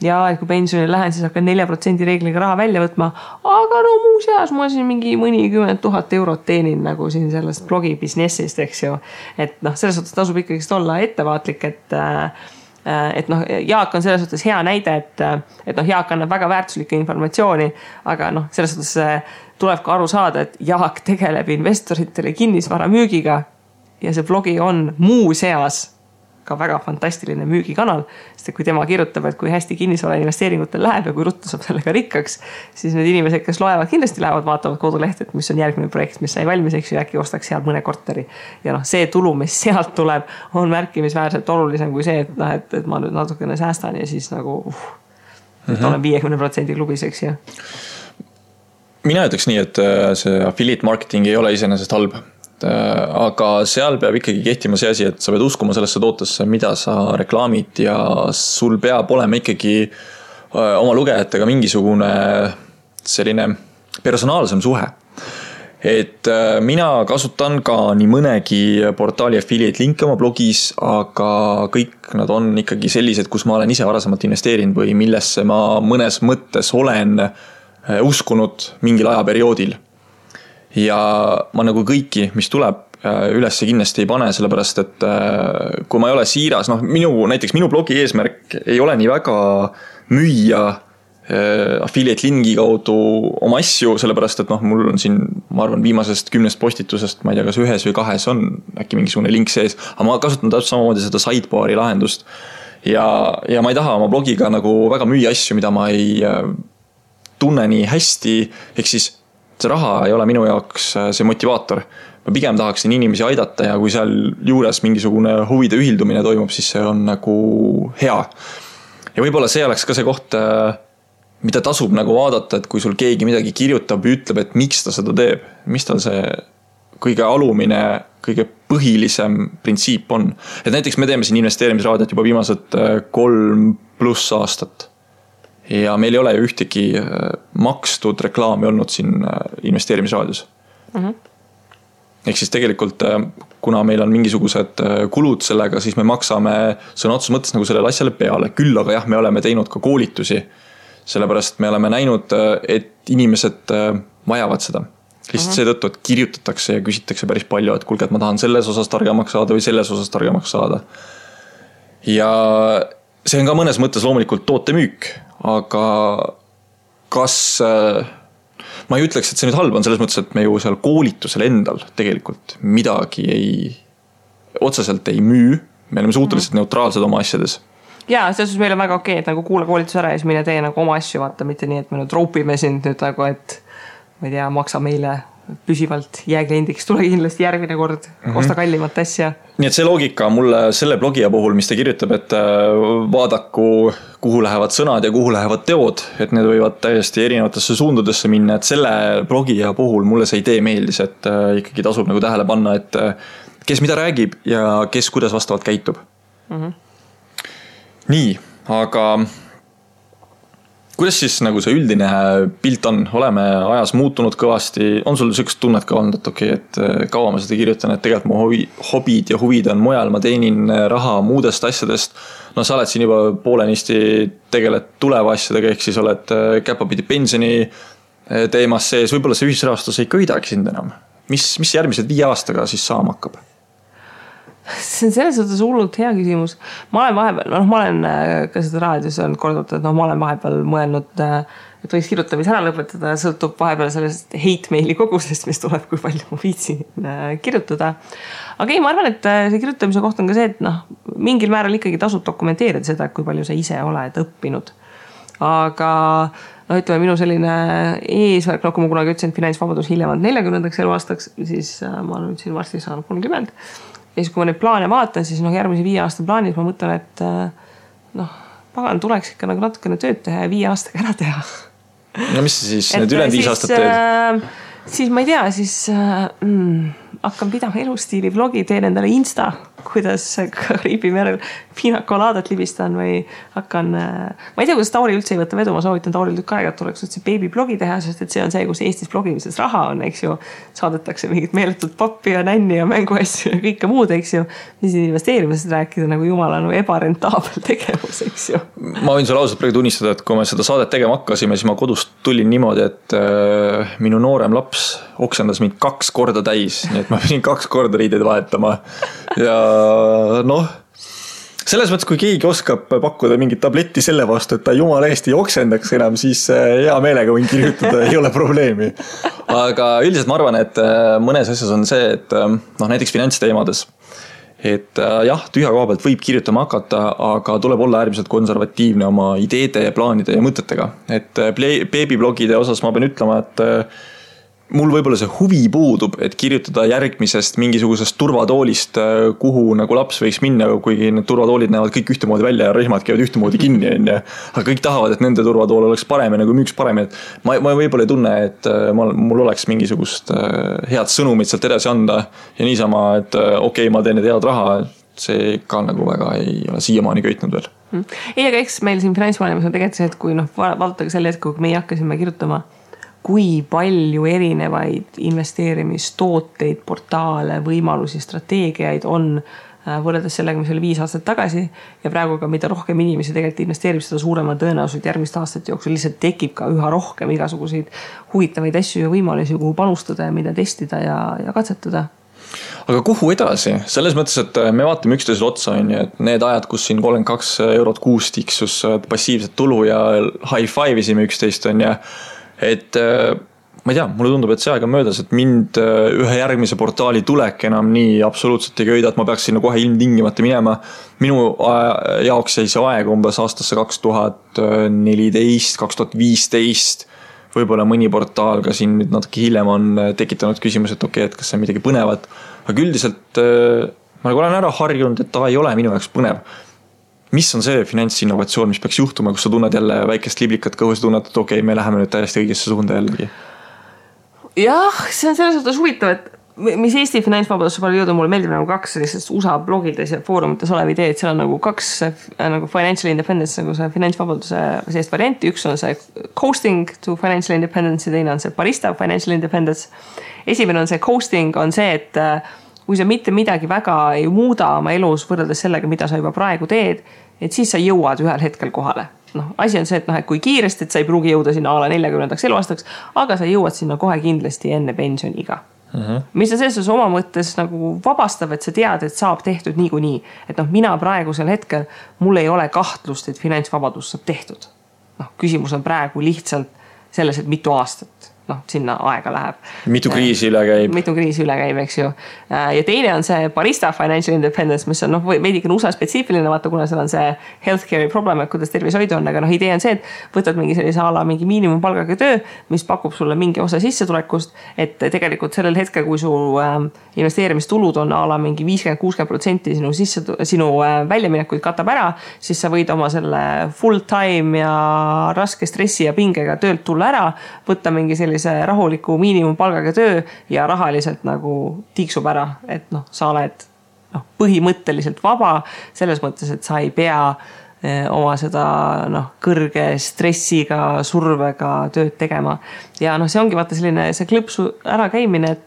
ja et kui pensionile lähen, siis hakkan 4% reegliga raha välja võtma, aga muu seas ma siin mingi mõnikümmend 000 eurot teenin nagu siin sellest blogi businessist, eks ju, et selles suhtes tasub ikkagi olla ettevaatlik, et Jaak on selles suhtes hea näide, et Jaak annab väga väärtuslikku informatsiooni, aga selles suhtes tuleb ka aru saada, et Jaak tegeleb investoritele kinnisvara müügiga ja see blogi on muu seas ka väga fantastiline müügikanal, sest kui tema kirjutab, et kui hästi kinnisvara investeeringutel läheb ja kui ruttu saab sellega rikkaks, siis need inimesed, kes loevad, kindlasti lähevad, vaatavad kodulehte, et mis on järgmine projekt, mis sai valmis, eks ju, äkki ostaks seal mõne korteri. Ja see tulu, mis sealt tuleb, on märkimisväärselt olulisem kui see, et ma nüüd natukene säästan ja siis nagu olen 50% klubis, eks ju. Mina ütleks nii, et see affiliate marketing ei ole iseenesest halb. Aga seal peab ikkagi kehtima see asi, et sa pead uskuma sellesse tootesse, mida sa reklaamid ja sul peab olema ikkagi oma lugejatega mingisugune selline personaalsem suhe. Et mina kasutan ka nii mõnegi portaali affiliate linke oma blogis, aga kõik nad on ikkagi sellised, kus ma olen ise varasemalt investeerinud või millesse ma mõnes mõttes olen uskunud mingil ajaperioodil. Ja ma nagu kõiki, mis tuleb ülesse kindlasti ei pane, sellepärast, et kui ma ei ole siiras, näiteks minu blogi eesmärk ei ole nii väga müüa affiliate lingi kaudu oma asju, sellepärast, et mul on siin, ma arvan, viimasest 10 postitusest, ma ei tea, kas 1 või 2 on äkki mingisugune link sees, aga ma kasutan täpselt samamoodi seda sidebari lahendust ja ma ei taha oma blogiga nagu väga müüa asju, mida ma ei tunne nii hästi, ehk siis see raha ei ole minu jaoks see motivaator, ma pigem tahaksin inimesi aidata ja kui seal juures mingisugune huvide ühildumine toimub, siis see on nagu hea. Ja võib-olla see oleks ka see koht, mida tasub nagu vaadata, et kui sul keegi midagi kirjutab ja ütleb, et miks ta seda teeb, mis tal see kõige alumine, kõige põhilisem printsiip on. Et näiteks me teeme siin investeerimisraadiot juba viimased 3+ aastat. Ja meil ei ole ju ühtegi makstud reklaami olnud siin investeerimisraadios. Ehk siis tegelikult, kuna meil on mingisugused kulud sellega, siis me maksame sõna otseses mõttes nagu sellele asjale peale. Küll aga jah, me oleme teinud ka koolitusi, sellepärast me oleme näinud, et inimesed vajavad seda. Lihtsalt seetõttu, et kirjutatakse ja küsitakse päris palju, et kuulge, et ma tahan selles osas targemaks saada või selles osas targemaks saada. Ja see on ka mõnes mõttes loomulikult tootemüük, aga kas... Ma ei ütleks, et see nüüd halb on selles mõttes, et me ju seal koolitusel endal tegelikult midagi otseselt ei müü. Me oleme suhteliselt neutraalsed oma asjades. Jaa, selles meil on väga okei, et nagu kuule koolitus ära ja siis mine tee nagu oma asju vaata, mitte nii, et me nüüd roopime sind nüüd nagu, et ma ei tea, maksa meile püsivalt jääkliendiks, tule kindlasti järgmine kord, osta kallimat asja. Nii et see loogika mulle selle blogija puhul, mis ta kirjutab, et vaadaku, kuhu lähevad sõnad ja kuhu lähevad teod, et need võivad täiesti erinevatesse suundudesse minna, et selle blogija puhul mulle see idee meeldis, et ikkagi tasub nagu tähele panna, et kes mida räägib ja kes kuidas vastavalt käitub. Nii, aga kuidas siis nagu see üldine pilt on? Oleme ajas muutunud kõvasti. On sul sükst tunnet ka olnud, et okei, et kaua ma seda kirjutan, et tegelikult mu hobid ja huvid on mujal, ma teenin raha muudest asjadest. No sa oled siin juba poolenisti tegeled tuleva asjadega, ehk siis oled käpapidi pensioni teemas sees. Võib-olla see ühisrahastus ei köidagi sind enam. Mis järgmised 5 aastaga siis saama hakkab? See on selles suhtes hullult hea küsimus. Ma olen vahepeal, ma olen ka seda raadios on kordult, et ma olen vahepeal mõelnud, et võiks kirjutamise ära lõpetada, sõltub vahepeal sellest hate-maili kogusest, mis tuleb, kui palju ma viitsin kirjutada. Aga ei, ma arvan, et see kirjutamise koht on ka see, et mingil määral ikkagi tasub dokumenteerida seda, kui palju sa ise oled õppinud. Aga ütleme, minu selline eesmärk, kui ma kunagi ütlesin, et finantsvabadus hiljemalt 40. eluaastaks, siis ma nüüd siin varsti saan 30. Ja siis kui ma neid plaane vaatan, siis järgmise 5 aasta plaanis ma mõtlen, et pagan tuleks ikka nagu natukene tööd teha ja 5 aastaga ära teha. No mis siis need ülejäänud 5 aastat teed? Siis ma ei tea, siis hakkan pidama elustiili vlogi, teen endale Insta, kuidas Kariibi merel piinakolaadat libistan või hakkan, ma ei tea, kuidas Tauri üldse ei võtta vedu, ma soovitan Tauril tükk aega, et tuleks üldse beebiblogi teha, sest et see on see, kus Eestis blogimises raha on, eks ju, saadetakse mingit meeletut pappi ja nänni ja mänguasju ja kõike muud, eks ju, mis investeerimisest rääkida nagu jumala ebarentaabel tegevus, eks ju. Ma võin sulle ausalt praegu tunnistada, et kui me seda saadet tegema hakkasime, siis ma kodust tulin niimoodi, et minu noorem laps oksendas mind 2 korda täis, nii et ma pidin 2 korda riideid vahetama ja selles mõttes, kui keegi oskab pakkuda mingit tabletti selle vastu, et ta jumala eest ei oksendaks enam, siis hea meelega võin kirjutada, ei ole probleemi. Aga üldiselt ma arvan, et mõnes asjas on see, et näiteks finantsteemades, et jah, tühja koha pealt võib kirjutama hakata, aga tuleb olla äärmiselt konservatiivne oma ideede ja plaanide ja mõtetega. Et beebiblogide osas ma pean ütlema, et mul võib-olla see huvi puudub, et kirjutada järgmisest mingisugusest turvatoolist, kuhu nagu laps võiks minna, kuigi need turvatoolid näevad kõik ühtemoodi välja ja rihmad käivad ühtemoodi kinni. Aga kõik tahavad, et nende turvatool oleks parem ja nagu müüks parem. Ma võib-olla ei tunne, et mul oleks mingisugust head sõnumit sealt edasi anda ja niisama, et okei, ma teen need head raha, see ka nagu väga ei ole siiamaani köitnud veel. Ei, aga eks meil siin finantsmaailmas on tegelikult see, et kui vaadatage selle hetk, kui meie hakkasime kirjutama, kui palju erinevaid investeerimistooteid, portaale, võimalusi, strateegiaid on võrreldes sellega, mis oli 5 aastat tagasi ja praegu ka mida rohkem inimesi tegelikult investeerib, seda suurema tõenäoliselt järgmist aastat jooksul lihtsalt tekib ka üha rohkem igasuguseid huvitavaid asju ja võimalusi, kuhu panustada ja mida testida ja katsetada. Aga kuhu edasi? Selles mõttes, et me vaatame üksteisel otsa, et need ajad, kus siin 32 eurot kuus tiksus passiivset tulu ja high-five'isime üksteist on ja et ma ei tea, mulle tundub, et see aeg on möödas, et mind ühe järgmise portaali tulek enam nii absoluutselt ei köida, et ma peaks sinna kohe ilmtingimata minema. Minu jaoks jäi see aeg umbes aastasse 2014, 2015, võib-olla mõni portaal ka siin nüüd natuke hiljem on tekitanud küsimus, et okei, et kas see on midagi põnevat, aga üldiselt ma olen ära harjunud, et ta ei ole minu jaoks põnev. Mis on see finantsinnovatsioon, mis peaks juhtuma, kus sa tunned jälle väikest liblikat kõhus, tunned, et okei, me läheme nüüd täiesti õigesse suunda jällegi? Jah, see on selles suhtes huvitav, et mis Eesti finantsvabadusse palju jõudu, mulle meeldib nagu 2 sellisest USA blogides ja foorumites olev idee, et seal on nagu 2 nagu financial independence, nagu see finantsvabaduse sellist varianti. Üks on see coasting to financial independence ja teine on see barista financial independence. Esimene on see coasting, on see, et kui sa mitte midagi väga ei muuda oma elus võrreldes sellega, mida sa juba praegu teed, et siis sa jõuad ühel hetkel kohale. Asi on see, et kui kiiresti, et sa ei pruugi jõuda sinna ala 40. eluaastaks, aga sa jõuad sinna kohe kindlasti enne pensioniga. Mis on selles oma mõttes nagu vabastav, et sa tead, et saab tehtud niikuinii. Et mina praegusel hetkel, mul ei ole kahtlust, et finantsvabadus saab tehtud. Küsimus on praegu lihtsalt selles, et mitu aastat sinna aega läheb. Mitu kriisi üle käib. Mitu kriisi üle käib, eks ju. Ja teine on see barista financial independence, mis on veidike USA spetsiifiline, vaata, kuna seal on see healthcare'i problem, et kuidas tervishoidu on, aga idee on see, et võtad mingi sellise ala mingi miinimumpalgaga töö, mis pakub sulle mingi osa sissetulekust, et tegelikult sellel hetkel, kui su investeerimistulud on ala mingi 50-60% sinu väljaminekuid katab ära, siis sa võid oma selle full time ja raske stressi ja pingega töölt tulla ära, võtta mingi sellise rahuliku miinimumpalgaga töö ja rahaliselt nagu tiiksub ära, et sa oled põhimõtteliselt vaba selles mõttes, et sa ei pea oma seda kõrge stressiga, survega tööd tegema. Ja see ongi vaata selline see klõpsu ära käimine,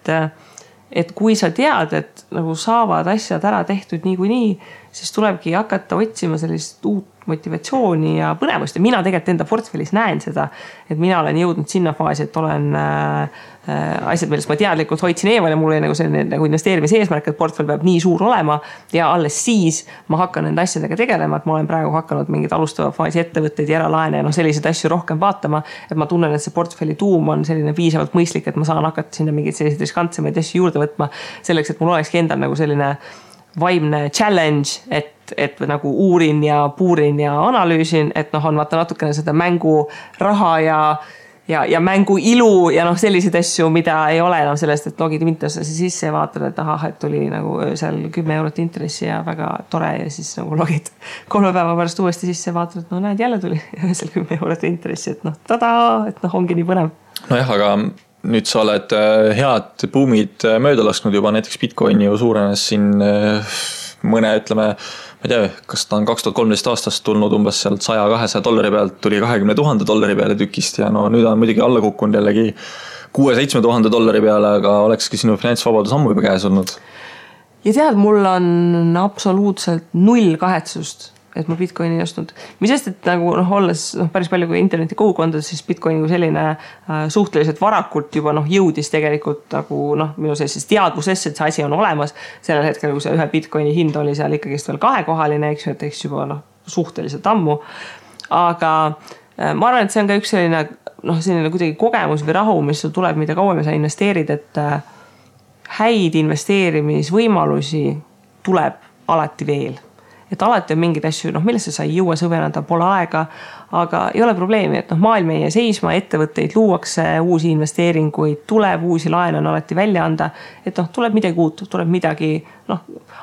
et kui sa tead, et nagu saavad asjad ära tehtud niikuinii, siis tulebki hakata otsima sellist uut motivatsiooni ja põnevust. Ja mina tegelikult enda portfellis näen seda, et mina olen jõudnud sinna faasi, et olen asjad, millest ma teadlikult hoidsin eemal ja mul oli nagu selline nagu investeerimise eesmärk, et portfell peab nii suur olema ja alles siis ma hakkan nende asjadega tegelema, et ma olen praegu hakanud mingid alustava faasi ettevõtteid ja eralaene ja selliseid asju rohkem vaatama, et ma tunnen, et see portfelli tuum on selline piisavalt mõistlik, et ma saan hakata sinna mingid sellised riskantsemaid asju juurde võtma selleks, et mul olekski endal nagu selline vaimne challenge, et nagu uurin ja puurin ja analüüsin, et on vaata natukene seda mängu raha ja mängu ilu ja selliseid asju, mida ei ole enam sellest, et logid Mintosse sisse ja vaatad, et et tuli nagu seal 10 eurot intressi ja väga tore ja siis nagu logid 3 päeva pärast uuesti sisse ja vaatad, et näed, jälle tuli seal 10 eurot intressi, et tada, et ongi nii põnev. Nojah, aga nüüd sa oled head buumid mööda lasknud juba, näiteks Bitcoini ju suurenes siin mõne, ütleme, ma ei tea, kas ta on 2013 aastast tulnud umbes sealt $100-200 pealt, tuli $20,000 peale tükist ja nüüd on muidugi alla kukkunud jällegi $6,000-7,000 peale, aga olekski sinu finantsvabadus ammu juba käes olnud. Ja tead, mul on absoluutselt 0 kahetsust, et ma Bitcoini ei ostnud. Mis sest, et nagu olles päris palju kui interneti kogukondades, siis Bitcoini kui selline suhteliselt varakult juba jõudis tegelikult nagu minu sellises teadvusesse, et see asi on olemas. Sellel hetkel, kui see ühe Bitcoini hind oli seal ikkagist veel 2-kohaline, eks juba suhteliselt ammu. Aga ma arvan, et see on ka üks selline kuidagi kogemus või rahu, mis sul tuleb, mida kauem sa investeerid, et häid investeerimisvõimalusi tuleb alati veel. Et alati on mingid asju, millesse sa ei jõua sõvenada, pole aega, aga ei ole probleemi, et maailm ei seisma, ettevõtteid luuakse, uusi investeeringuid tuleb, uusi laene on alati välja anda, et tuleb midagi uut, tuleb midagi,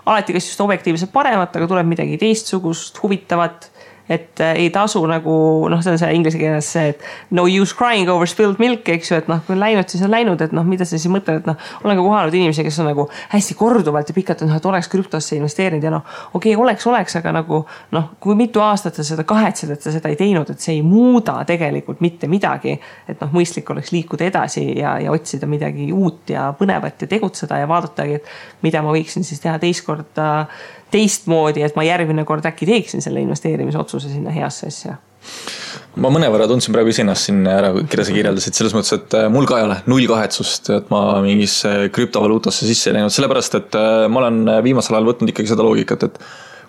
alati kas just objektiivselt paremat, aga tuleb midagi teistsugust, huvitavat, et ei tasu nagu, see on see inglise keeles see, et no use crying over spilled milk, eks ju, et kui on läinud, siis on läinud, et mida sa siis mõtled, et olen ka kohanud inimesi, kes on nagu hästi korduvalt ja pikalt, et oleks krüptosse investeerinud ja okei, oleks, aga nagu, kui mitu aastat sa seda kahetsed, et sa seda ei teinud, et see ei muuda tegelikult mitte midagi, et mõistlik oleks liikuda edasi ja otsida midagi uut ja põnevat ja tegutseda ja vaadatagi, et mida ma võiksin siis teha teistmoodi, et ma järgmine kord äkki teeksin selle investeerimisotsuse sinna heasse asja. Ma mõnevõrra tundsin praegu ise ennast siin ära, keda sa kirjeldasid, selles mõttes, et mul ka ei ole 0 kahetsust, et ma mingis krüptovaluutasse sisse ei läinud, sellepärast, et ma olen viimasel ajal võtnud ikkagi seda loogikat, et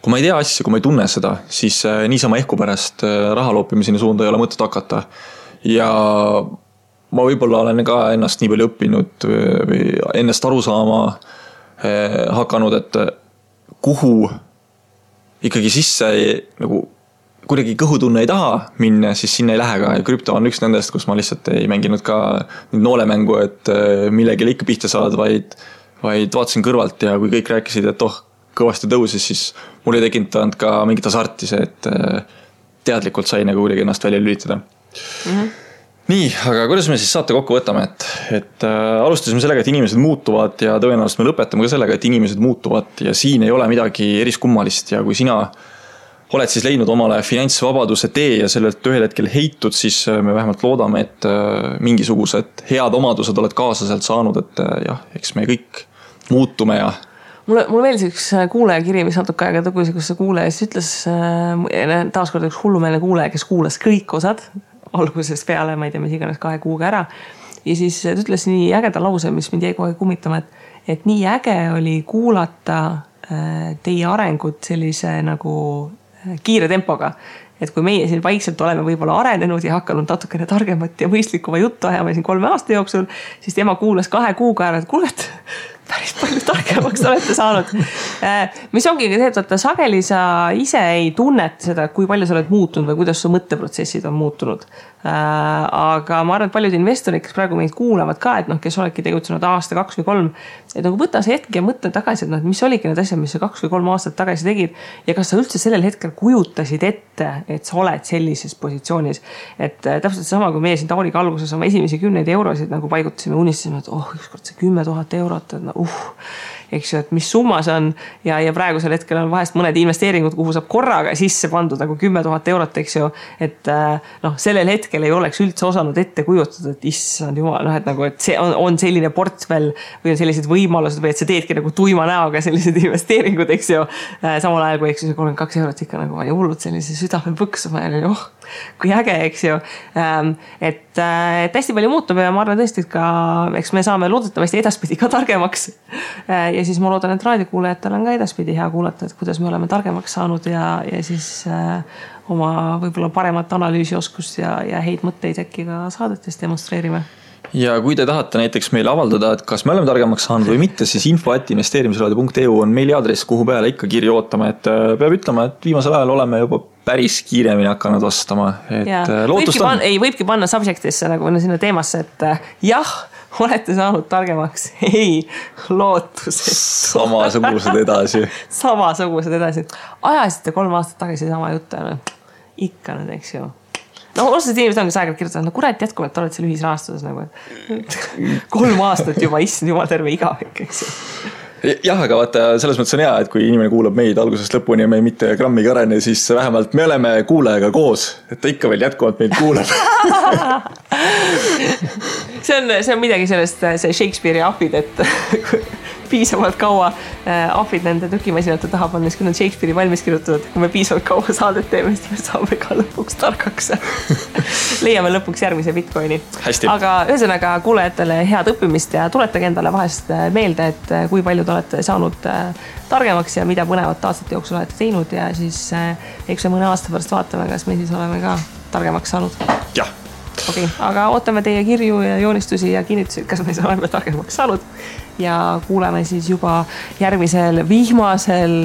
kui ma ei tea asja, kui ma ei tunne seda, siis niisama ehku pärast raha loopimiseni suunda ei ole mõtet hakata. Ja ma võib-olla olen ka ennast nii palju õppinud või ennast aru saama hakanud, et kuhu ikkagi sisse nagu kuidagi kõhutunne ei taha minna, siis sinna ei lähe ka ja krüpto on üks nendest, kus ma lihtsalt ei mänginud ka noolemängu, et millegile ikka pihta saad, vaid vaatasin kõrvalt ja kui kõik rääkisid, et kõvasti tõusis, siis mul ei tekitanud ka mingit hasarti see, et teadlikult sai nagu kuidagi ennast välja lülitada. Nii, aga kuidas me siis saate kokku võtame, et alustasime sellega, et inimesed muutuvad ja tõenäoliselt me lõpetame ka sellega, et inimesed muutuvad ja siin ei ole midagi eriskummalist ja kui sina oled siis leidnud omale finantsvabaduse tee ja sellelt ühel hetkel heitud, siis me vähemalt loodame, et mingisugused head omadused oled kaasa sealt saanud, et jah, eks me kõik muutume ja Mulle meeldis üks kuulajakiri, mis natuke aega tagasi, kus see kuulaja siis ütles, taaskord üks hullumeelne kuulaja, kes kuulas kõik osad algusest peale, ma ei tea, mis iganes 2 kuuga ära. Ja siis ta ütles nii ägeda lause, mis mind jäi kohe kummitama, et nii äge oli kuulata teie arengut sellise nagu kiire tempoga. Et kui meie siin vaikselt oleme võib-olla arenenud ja hakanud natukene targemat ja mõistlikuma juttu ajama siin 3 aasta jooksul, siis tema kuulas 2 kuuga ära, et kuule, et päris palju targemaks olete saanud. Mis ongi see, et sageli sa ise ei tunneta seda, kui palju sa oled muutunud või kuidas su mõtteprotsessid on muutunud. Aga ma arvan, et paljud investorid, kes praegu meid kuulavad ka, et kes oledki tegutsenud aasta, 2 või 3, et nagu võta see hetk ja mõtle tagasi, et mis oligi need asjad, mis sa 2 või 3 aastat tagasi tegid ja kas sa üldse sellel hetkel kujutasid ette, et sa oled sellises positsioonis. Et täpselt sama, kui meie siin Tauriga alguses oma esimesi 10 eurosid nagu paigutasime, unistasime, et ükskord see 10 000 eurot, et eks ju, et mis summa see on ja praegusel hetkel on vahest mõned investeeringud, kuhu saab korraga sisse pandud nagu 10 000 eurot, eks ju, et sellel hetkel ei oleks üldse osanud ette kujutada, et issand jumal, et nagu, et see on selline portfell või on sellised võimalused või et sa teedki nagu tuima näoga sellised investeeringud, eks ju, samal ajal kui eks ju 32 eurot ikka nagu oli hullud sellise südame põksuma ja kui äge, eks ju, et hästi palju muutub ja ma arvan tõesti, et ka eks me saame loodetavasti edaspidi ka targemaks ja siis ma loodan, et raadiokuulajatel on ka edaspidi hea kuulata, et kuidas me oleme targemaks saanud ja siis oma võib-olla paremat analüüsioskust ja häid mõtteid äkki ka saadetes demonstreerime. Ja kui te tahate näiteks meile avaldada, et kas me oleme targemaks saanud või mitte, siis info@investeerimisraadio.eu on meiliadress, kuhu peale ikka kirja ootama, et peab ütlema, et viimasel ajal oleme juba päris kiiremini hakanud vastama, et lootust on. Võibki panna subjectisse nagu sinna teemasse, et jah, olete saanud targemaks, ei, lootused. Samasugused edasi. Samasugused edasi. Ajasite 3 aastat tagasi sama juttu, ikka nüüd, eks ju. Osad inimesed ongi aegalt kirjutanud, kurat jätkuvalt oled seal ühisrahastuses nagu, et 3 aastat juba issand jumal terve igavik, eks ju. Jah, aga vaata, selles mõttes on hea, et kui inimene kuulab meid algusest lõpuni ja me mitte grammigi arene, siis vähemalt me oleme kuulajaga koos, et ta ikka veel jätkuvalt meid kuulab. see on midagi sellest, see Shakespeare'i ahvid, et piisavalt kaua ahvid nende tükimasinate taha pannes, kui nad Shakespeare'i valmis kirjutatud, kui me piisavalt kaua saadet teeme, siis me saame ka lõpuks targaks. Leiame lõpuks järgmise Bitcoini. Hästi. Aga ühesõnaga kuulajatele head õppimist ja tuletage endale vahest meelde, et kui palju te olete saanud targemaks ja mida põnevat aastate jooksul olete teinud ja siis eks me mõne aasta pärast vaatame, kas me siis oleme ka targemaks saanud. Jah. Okay, aga ootame teie kirju ja joonistusi ja kinnitusi, kas me oleme targemaks saanud ja kuuleme siis juba järgmisel vihmasel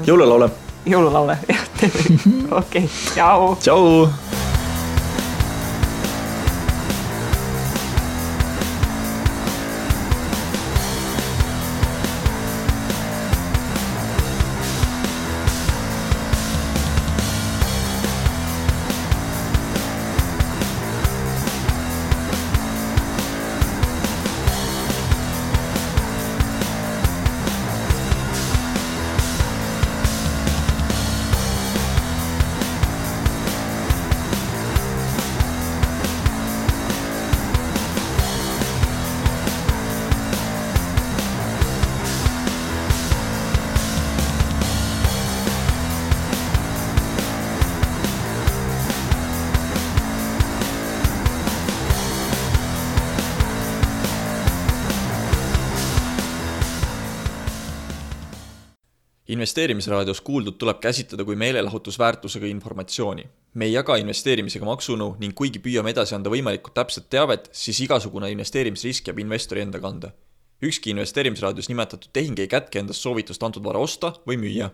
jõululaule. Jõululaule, jah, teeme. Okei, tšau. Tšau. Investeerimisraadios kuuldud tuleb käsitleda kui meelelahutusväärtusega informatsiooni. Me ei jaga investeerimisega maksunu ning kuigi püüame edasi anda võimalikult täpset teavet, siis igasugune investeerimisrisk jääb investori enda kanda. Ükski investeerimisraadios nimetatud tehing ei kätke endast soovitust antud vara osta või müüa.